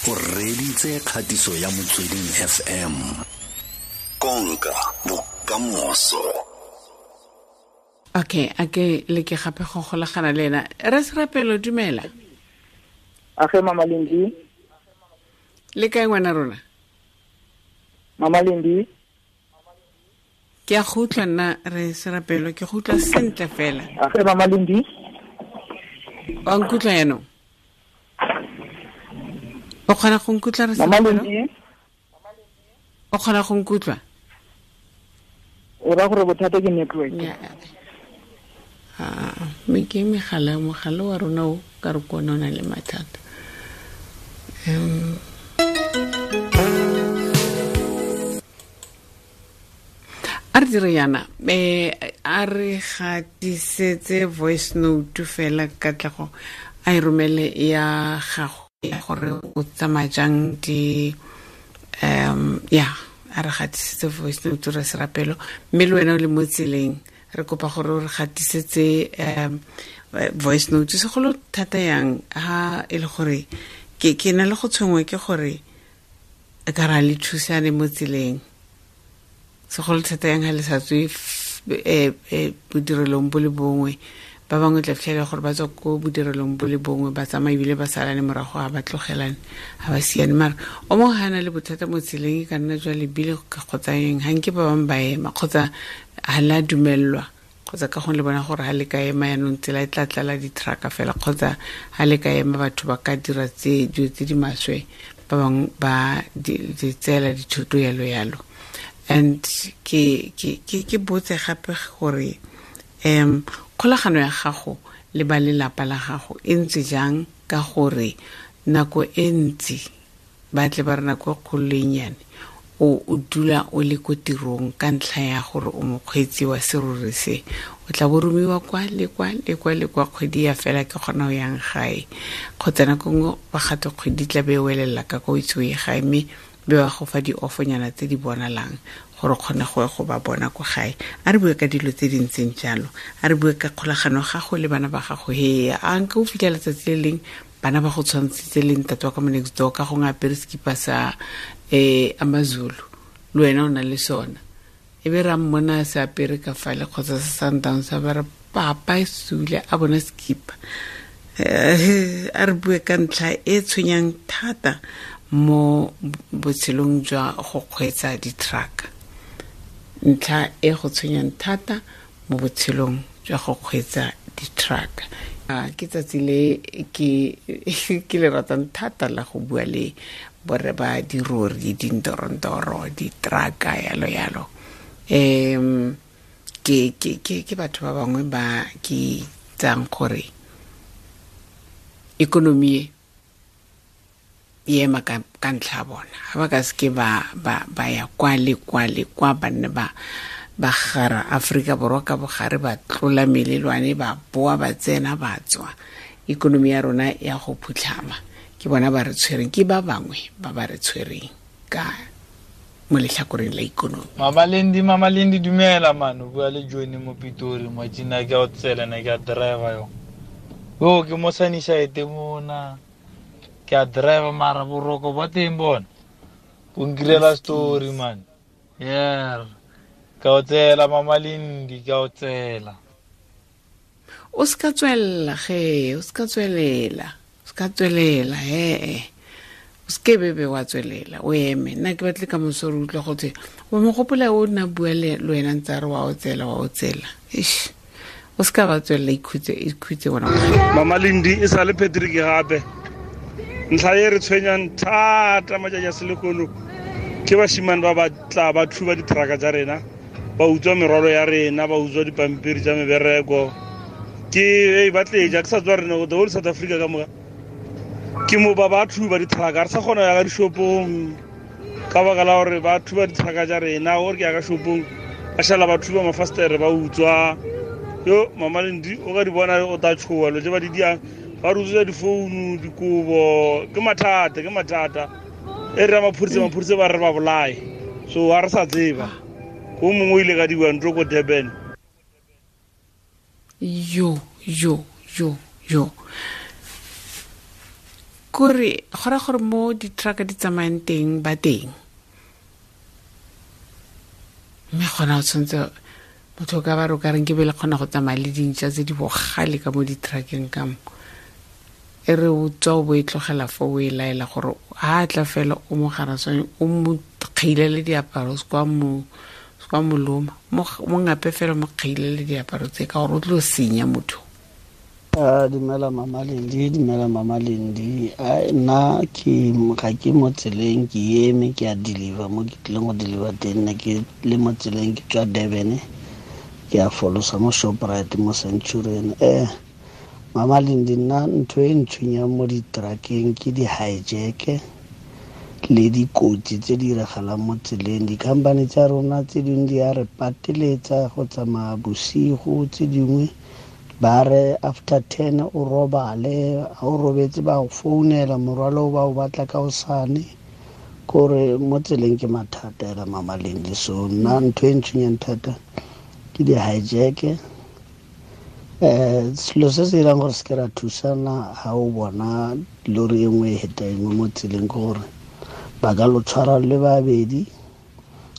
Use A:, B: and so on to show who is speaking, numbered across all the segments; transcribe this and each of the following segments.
A: O reditse kgatiso ya Motsweding FM. Konka bokamoso.
B: Okay, a ke le ke gape go golagana le ena. Re Serapelo, dumela.
C: A ge Mama Lendi.
B: Le kae ngwana rona?
C: Mama Lendi.
B: Ke a go utlwa nna re Serapelo, ke go utlwa sentle fela.
C: A ge Mama Lendi.
B: Wa nkutlwa yaanong? O kgona go nkutlwa re
C: Mama Lendi?
B: O kgona go nkutlwa?
C: O ra gore bothata ke network.
B: Ah, me ke megala, mogala wa rona o ka re kone o na le mathata. A re dire yana, a re gatisetse voice note fela Katlego a e romele ya gago gore o tsamaya jang di, ya, a re gatisetse voice note re Serapelo, mme le wena o le mo tseleng re kopa gore o re gatisetse voice note segolo thata yang ha e le gore ke na le go tshwengwa ke gore ka ra le thusane mo tseleng, segolo thata yang ha le sa tswe bodirelong bo le bongwe. Ba bangwe tla fitlhela gore ba tswa ko bodirelong bo le bongwe, ba tsamaya ebile ba salane morago, ga ba tlogelane, ga ba siane. Mara o mongwe ga a na le bothata mo tseleng, e ka nna jwa lebile kgotsa eng, ga nke ba bangwe ba ema kgotsa ga la dumellwa, kgotsa ka gongwe le bona gore ga le ka ema yaanong tsela e tla tlala di-trucka fela, kgotsa ga le ka ema batho ba ka dira dilo tse di maswe, ba bangwe ba di tseela dithoto yalo yalo. And ke botse gape gore kgolagano ya gago le ba lelapa la gago e ntse jang, ka gore nako e ntsi ba tle ba re nako e kgolo le e nnyane o dula o le ko tirong ka ntlha ya gore o mokgweetsi wa serori se, o tla bo romiwa kwa le kwa le kwa le kwa, kgwedi ya fela ke kgona ho yang gae, kgotsa nako nngwe ba gate kgwedi tla be e welela ka kwa o itse o ye gae, mme be ba go fa di-offonyana tse di bonalang gore o kgone go ya go ba bona ko gae. A re bue ka dilo tse di ntseng jalo, a re bue ka kgolagano ya gago le bana ba gago. He, a nka o fitlhela letsatsi le leng bana ba go tshwantshitse le ntate wa ka mo next door ka gongwe apere sekipa sa Amazulu, le wena o na le sona, e be ra mmona se apere ka fale kgotsa sa Sundowns, a ba re papa e sule a bona sekipa. A re bue ka ntlha e tshwenyang thata mo botshelong jwa go kgweetsa di-truck, ntlha e go tshwenyang thata mo botshelong jwa go kgweetsa di-truck. Ke tsatsi le ke le ratang thata la go bua le borre ba dirori, dintorontoro, di-trucka, yalo yalo. Ke batho ba bangwe ba ke tsang gore ikonomi e ema ka ntlha ya bona. Ha ba ka seke ba ya kwa le kwa le kwa, ba nne ba gara Aforika Borwa ka bogare, ba tlola melelwane, ba boa, ba tsena, ba tswa. Ikonomi ya rona ya go phutlhama. Ke bona ba re tshwereng, ke ba bangwe ba ba re tshwereng ka mo letlhakoreng la ikonomi.
D: Mama Lendi, Mama Lendi, dumela man, o bua le Johnny mo Pitori, matšina ke a o tsela, ne ke a driver yo. Yo, ke mo Sunnyside mona. Ke a driver mara boroko ba teng bona. Bo nkirela story man. Yeah. Ka o tsela Mama Lendi, ka o tsela.
B: O ska tswelela ge, o ska tswelela. O ska tswelela he. O ske bebe wa tswelela, o eme. Nna ke batle ka moso re utlwa go thwe, wa mo gopola o nna bua le wena ntse a re wa o tsela, wa o tsela. Eish. O ska ba tswelela, ikhutse, ikhutse wena.
E: Mama Lendi, e sale Patrick gape. Ntlha e re tshwenyang thata matšatši a selehono ke bashimane ba ba tla ba thuba ditrucka tsa rena, ba utswa merwalo ya rena, ba utswa dipampiri tsa mebereko. Ke, ei, ba tleja, ke sa tswa rena, the whole South Africa ka moka. Ke mo ba ba thuba ditrucka, re sa kgona go ya ka dishopong ka baka la gore ba thuba ditrucka tsa rena. Gore ke ya ka shopong, ba šala ba thuba mafastere, ba utswa. Yo, Mama Lendi, o ka di bona o tla tshoha, lo tse ba di diang, ba re utswetsa difounu, dikobo. Ke mathata, ke mathata. E re ya maphodisa, maphodisa ba re ba bolae. So, ha re sa tseba. O mongwe o ile ka diwa ntlo ko Durban.
B: Yo, yo, yo, yo. Kore go ra gore mo di-truck di tsamayang teng ba teng. Mme gona o tshwanetse motho o ka ba re o ka reng ke be le kgona go tsamaya le dintšha tse di bogale ka mo di-truckeng ka mo. E re o tswa o bo e tlogela fo o e laela gore ha a tla fela o mo garaswane o mo kgailele diaparo se kwa mo loma mo ngape fela mo kgailele diaparo tse ka gore o tlo senya motho.
F: Dumela Mama Lendi, dumela Mama Lendi. Nna ke ga ke mo tseleng, ke eme ke a deliver mo ke tlileng go deliver teng. Nna ke le mo tseleng ke tswa Durban, ke a folosa mo Shoprite mo Centurion. Mama Lendi, nna ntho e ntshwenyang mo di-truckeng ke di-hijack le dikotsi tse di diragalang mo tseleng. Di-company tsa rona tse dingwe di a re pateletsa go tsamaya bosigo, tse dingwe ba re after 10 o robale, ha o robetse ba go founela morwalo ba o batla ka hosane. Kore mo tseleng ke mathata ela Mama Lendi. So nna ntho e ntshwenyang thata ke di-hijack. Selo se se dirang gore se ke ra thusana ha o bona lori e nngwe e heta e nngwe mo tseleng ke gore ba ka lo tshwara le babedi,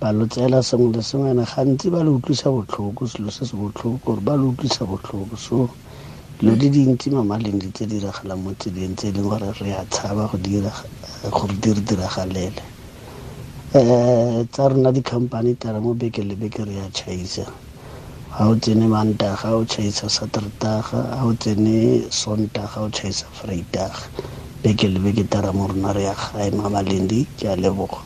F: ba lo tseela sengwe le sengwe, ene gantsi ba le utlwisa botlhoko. Selo se se botlhoko gore ba le utlwisa botlhoko. So dilo di dintsi Mama Lendi tse di diragalang mo tseleng tse e leng gore re a tshaba go dira gore di re diragalele. Tsa rona di-company tara mo beke le beke re a tšhaisa. Ha o tsene Mantaga o tšhaisa Saterdaga, ha o tsene Sontaga o tšhaisa Vrydag. Beke le beke tara mo rona re ya gae. Mama Lendi, ke a leboga.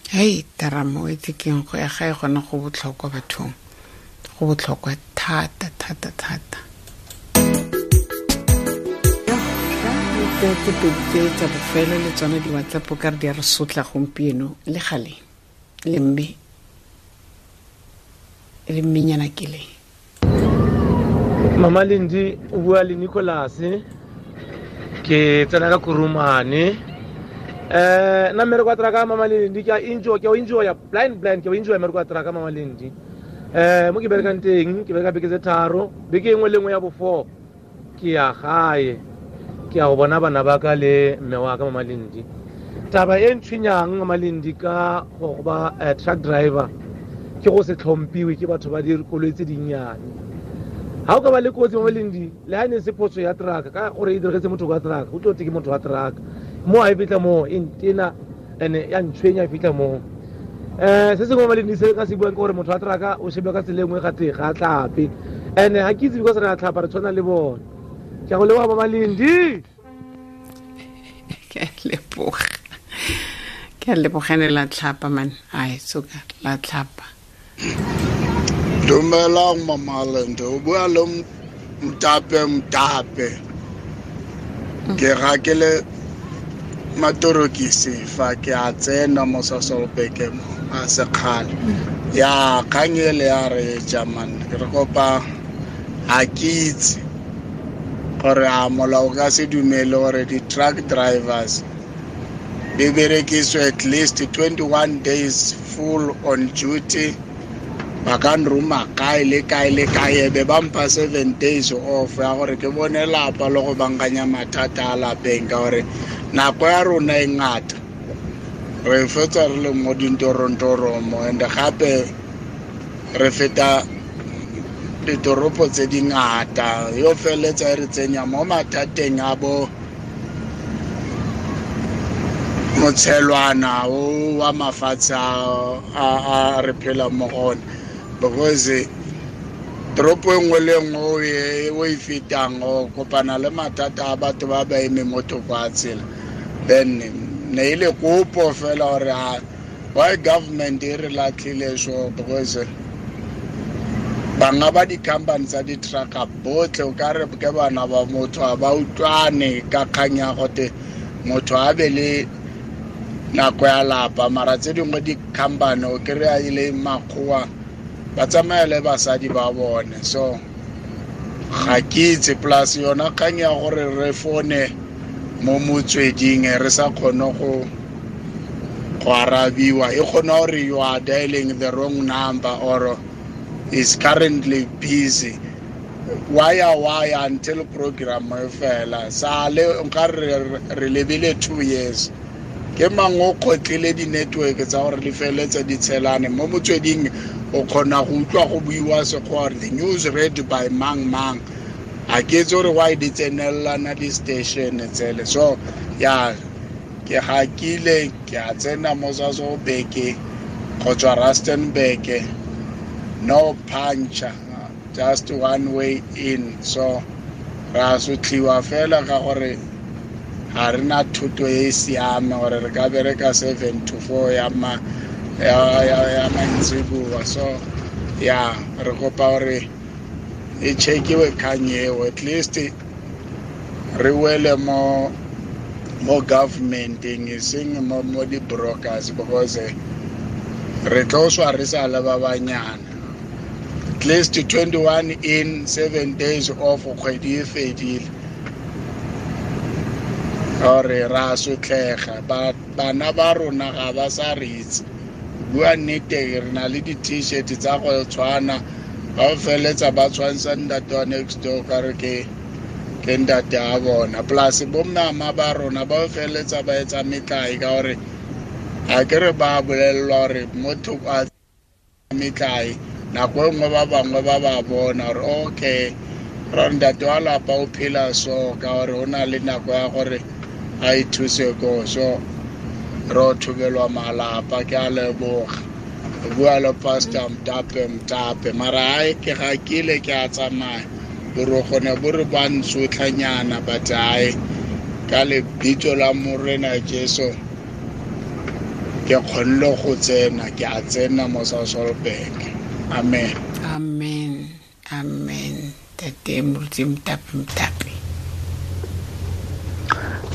B: Hei, taramo e tsekeng go ya gae gona go botlhokwa bathong. Go botlhokwa thata thata thata. Tse pedi tse tsa bofelo le tsone di-WhatsApp ka re di a re sotla gompieno le gale le mme le mmenyana ke le.
G: Mama Lendi, o bua le Nicholas, ke tsena ka Kurumane. Nna mmereko wa truck Mama Lendi ke a enjoy, ke a enjoy blind ke a enjoy mmereko wa truck Mama Lendi. Mo ke berekang teng ke bereka beke tse tharo, beke engwe le engwe ya bo 4 ke ya gae, ke ya go bona bana ba ka le mme wa ka Mama Lendi. Taba e ntshwenyang Mama Lendi ka go ba truck driver ke go se tlhomphiwe ke batho ba dikoloi tse dinnyane. Ha o ka ba le kotsi Mama Lendi, le ha ne se phoso ya truck ka gore e diretse motho wa truck, o tlo te ke motho wa truck. Mo a e fitla mo e ntena ene ya ntshwenya e fitla mo. Se sengwe Mama Lendi se ka se buang ke gore motho wa truck o shebe ka tsela e nngwe ga teng ga a tlhape. Ene ha ke itse because re a tlhapa re tshwana le bone. Ke a go leboga Mama Lendi.
B: Ke a leboga. Ke a lebogane la tlhapa man. Ai soka la tlhapa.
H: Dumelang Mama Lendi, o bua le Mtape. Ke rakele matorokisi fa ke a tsena mo Sasolbeke mo a sekgale. Ya kgang ele ya re jaman re kopa ha ke itse gore a molao ka se dumele gore di-truck drivers di berekiswe at least 21 days full on duty. Ba ka nroma kae le kae le kae, be ba mpha 7 days off ya gore ke bone lapa le go bankanya mathata a lapeng, ka gore nako ya rona e ngata re fetsa re le mo dintorontoro mo, and gape re feta ditoropo tse di ngata, yo feletsa e re tsenya mo mathateng a bo motshelwana o wa mafatshe a re phela mo go one. Because toropo e nngwe le nngwe o e fetang o kopana le mathata a batho ba ba eme mo thoko a tsela. Then ne e le kopo fela gore why government e re latlhile so, because banga ba di-company tsa di-trucka botlhe o ka re ke bana ba motho a ba utlwane ka kgang ya gote motho a be le nako ya lapa, mara tse dingwe di-company o kry-a e le makgowa ba tsamaya le basadi ba bone. So ga ke itse, plus yona kgang ya gore re fone mo motsweding re sa kgone go arabiwa, e kgona gore you are dialing the wrong number or is currently busy. Waya until program e fela sale nka re lebile 2 years ke mang o kgotlile di-network tsa gore di feletse di tshelane mo motsweding o kgona go utlwa go buiwa sekgowa the news read by mang mang a ke itse gore why di tsenelelana di-station tsele so ya ke hakile ke a tsena mo Sasolburg go tswa Rustenburg no puncture just one way in so ra sotliwa fela ka gore ga re na thuto e e siame gore re ka bereka 7 to 4 ya ma ya mantsiboa so ya re kopa gore e checkiwe kgang eo at least re wele mo governmenteng e seng mo di-brokers because re tlo swa re sa le ba banyana at least 21 in 7 days off kgwedi e fedile gore ra sotlega bana ba rona ga ba sa re itse bua nnete re na le di-t-shirt tsa go tshwana ba feletsa ba tshwantsha ntate wa next door ka re ke ntate a bona plus bommama ba rona ba feletsa ba etsa metlae ka gore ga ke re ba bolelelwa gore motho a metlae nako e nngwe ba bangwe ba ba bona gore okay ra ntate wa lapa o phela so ka gore o na le nako ya gore a ithuse ko so re thubelwa malapa ke a leboga bua le pastor Mtape mara ai ke ga kile ke a tsamaya boroko ne bo re ba ntsotlhanyana but ai ka lebitso la Morena Jesu ke kgonne go tsena ke a tsena mo Sasolburg. Amen.
B: Amen. Amen. Tate Moruti Mtape.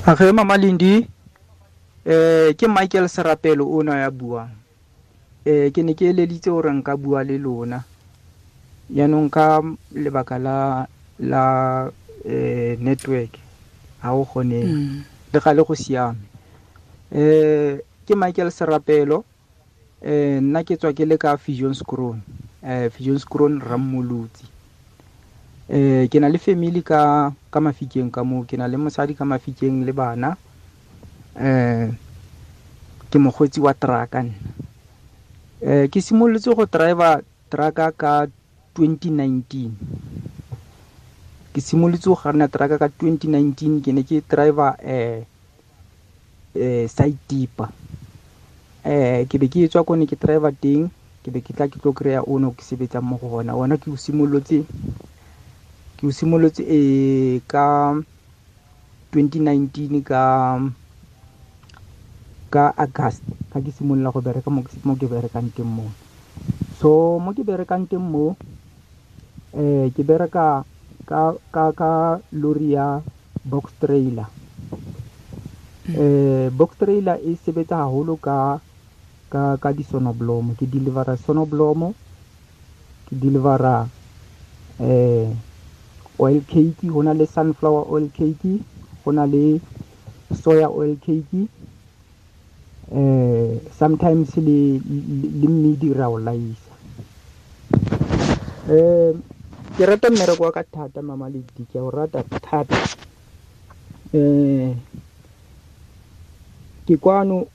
I: Age Mama Lindi ke Michael Serapelo o na ya buang. Ke ne ke eleditse gore nka bua le lona jaanong ka lebaka la network ha o kgone le gale go siame. Ke Michael Serapelo nna ke tswa ke le ka Viljoenskroon Viljoenskroon Rammolotsi. Ke na le family ka Mafikeng ka mo ke na le mosadi ka Mafikeng le bana. Ke mokgweetsi wa truck nna. Ke simolotse go driver truck ka 2019. Ke simolotse go kganna truck ka 2019 ke ne ke driver side tipper. Ke be ke tswa ko ne ke driver teng ke be ke tla ke tlo kry-a ono ke sebetsang mo go gona. Ona ke o simolotse ka 2019 ka August ka ke simolola go bereka mo ke berekang teng mo. So mo ke berekang teng mo ke bereka ka lori ya box trailer. Box trailer e sebetsa haholo ka di-sonoblomo. Ke delivera sonoblomo, ke delivera oil cake, ho na le sunflower oil cake, ho na le soya oil cake. Sometimes le mmidi ra o laisa. Ke rata mmereko wa ka thata Mama Lindi, ke a o rata thata. Ke kwano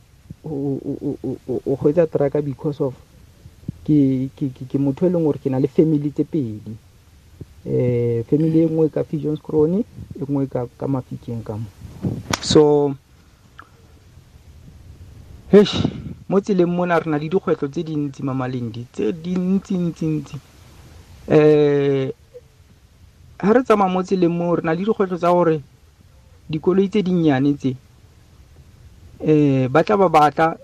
I: o kgweetsa truck because of ke motho e leng gore ke na le family tse pedi. Family e nngwe ka Viljoenskroon, e nngwe ka Mafikeng ka mo. So heish mo tseleng mona re na le dikgwetlho tse dintsi Mama Lindi, tse dintsi. Ha re tsamaya mo tseleng mo re na le dikgwetlho tsa gore dikoloi tse dinnyane tse ba tla ba batla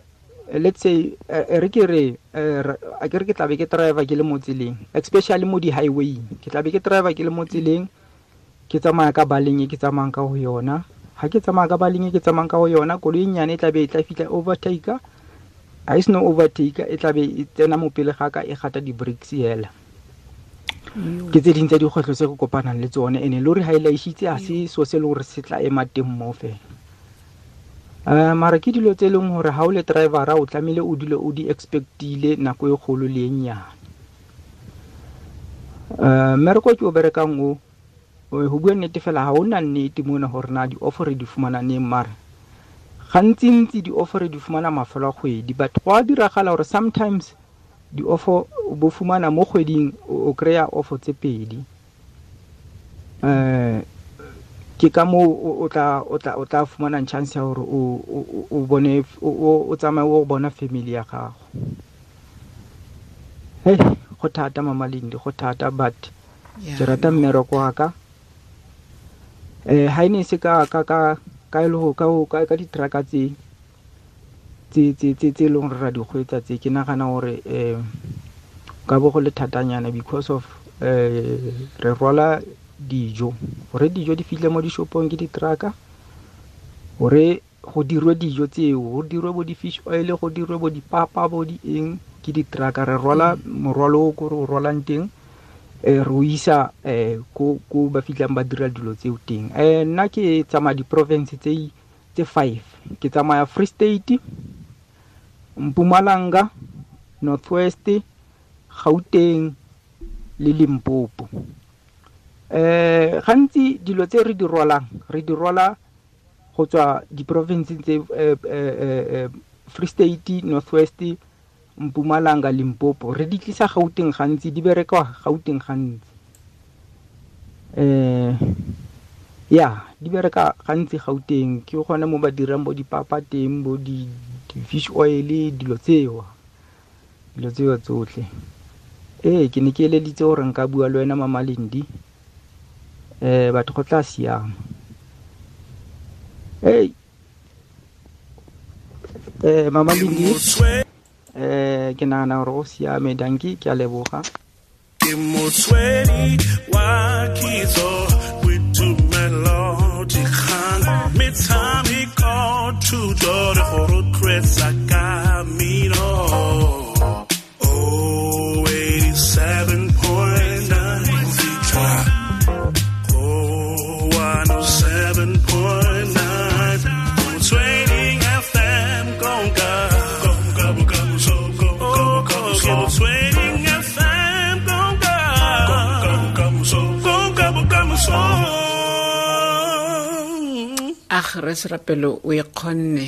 I: let's say re ke re a ke re ke tla be ke driver ke le mo tseleng, especially mo di-highway ke tla be ke driver ke le mo tseleng ke tsamaya ka baleng e ke tsamayang ka ho yona. Ha ke tsamaya ka baleng e ke tsamayang ka ho yona koloi e nyane e tla be e tla fihla overtaker ha e seno overtaker e tla be e tsena mo pele ga ka e gata di-brakes hela. Ke tse ding tsa dikgwetlho tse re kopanang le tsone ene lori ha e laishitse ha se so se le hore se tla ema teng mo fela. Mara ke dilo tse leng hore ha o le driver-a o tlamehile o dule o di expect-ile nako e kgolo le e nyane. Mmereko ke o berekang o, go bua nnete fela, ga o na nnete mona gore na di-offer re di fumana neng, mara gantsintsi di-offer re di fumana mafelo a kgwedi. But go a diragala gore sometimes di-offer o bo fumana mo kgweding, o kry-a offer tse pedi. Ke ka moo o tla fumanang chance ya gore o bone, o tsamaye o bona family ya gago. Hey, go thata, Mama Lindi, go thata, but ke rata mmereko wa ka. Ha e ne se ka e le go ka di-trucka tse e leng gore ra di kgweetsa tse, ke nagana gore ka bo go le thatanyana, because of re rwala dijo. Gore dijo di fitlhe mo dishopong ke di-trucka, gore go dirwe dijo tseo, go dirwe bo di-fish oil, go dirwe bo dipapa, bo di eng, ke di-trucka. Re rwala morwalo o ko re o rwalang teng, re o isa ko ba fitlhang ba dira dilo tseo teng. Nna ke tsamaya di-province tse five. Ke tsamaya Free State, Mpumalanga, North West, Gauteng le Limpopo. Gantsi dilo tse re di rwalang, re di rwala go tswa di-provinceng tse Free State, North West, Mpumalanga, Limpopo, re di tlisa Gauteng. Gantsi di bereka Gauteng gantsi. Ya, di bereka gantsi Gauteng, ke gone mo ba dirang bo dipapa teng, bo di-fish oil, dilo tseo tsotlhe. Ee, ke ne ke eleditse gore nka bua le wena, Mama Lindi. Batho, go tla siama. Hey, Mama Lindi, ke nagana gore go siame. Dankie, ke a leboga.
J: Ke motswedi wa kitso, boitumelo, dikgang, metshameko, thuto re go rotloetsa ka mmino. Oh, 87.9 fitlha oh 107.9 Motsweding FM, konka konka bokamoso, konka Motsweding FM, konka konka bokamoso, konka bokamoso.
B: Ag, re Serapelo, o e kgonne.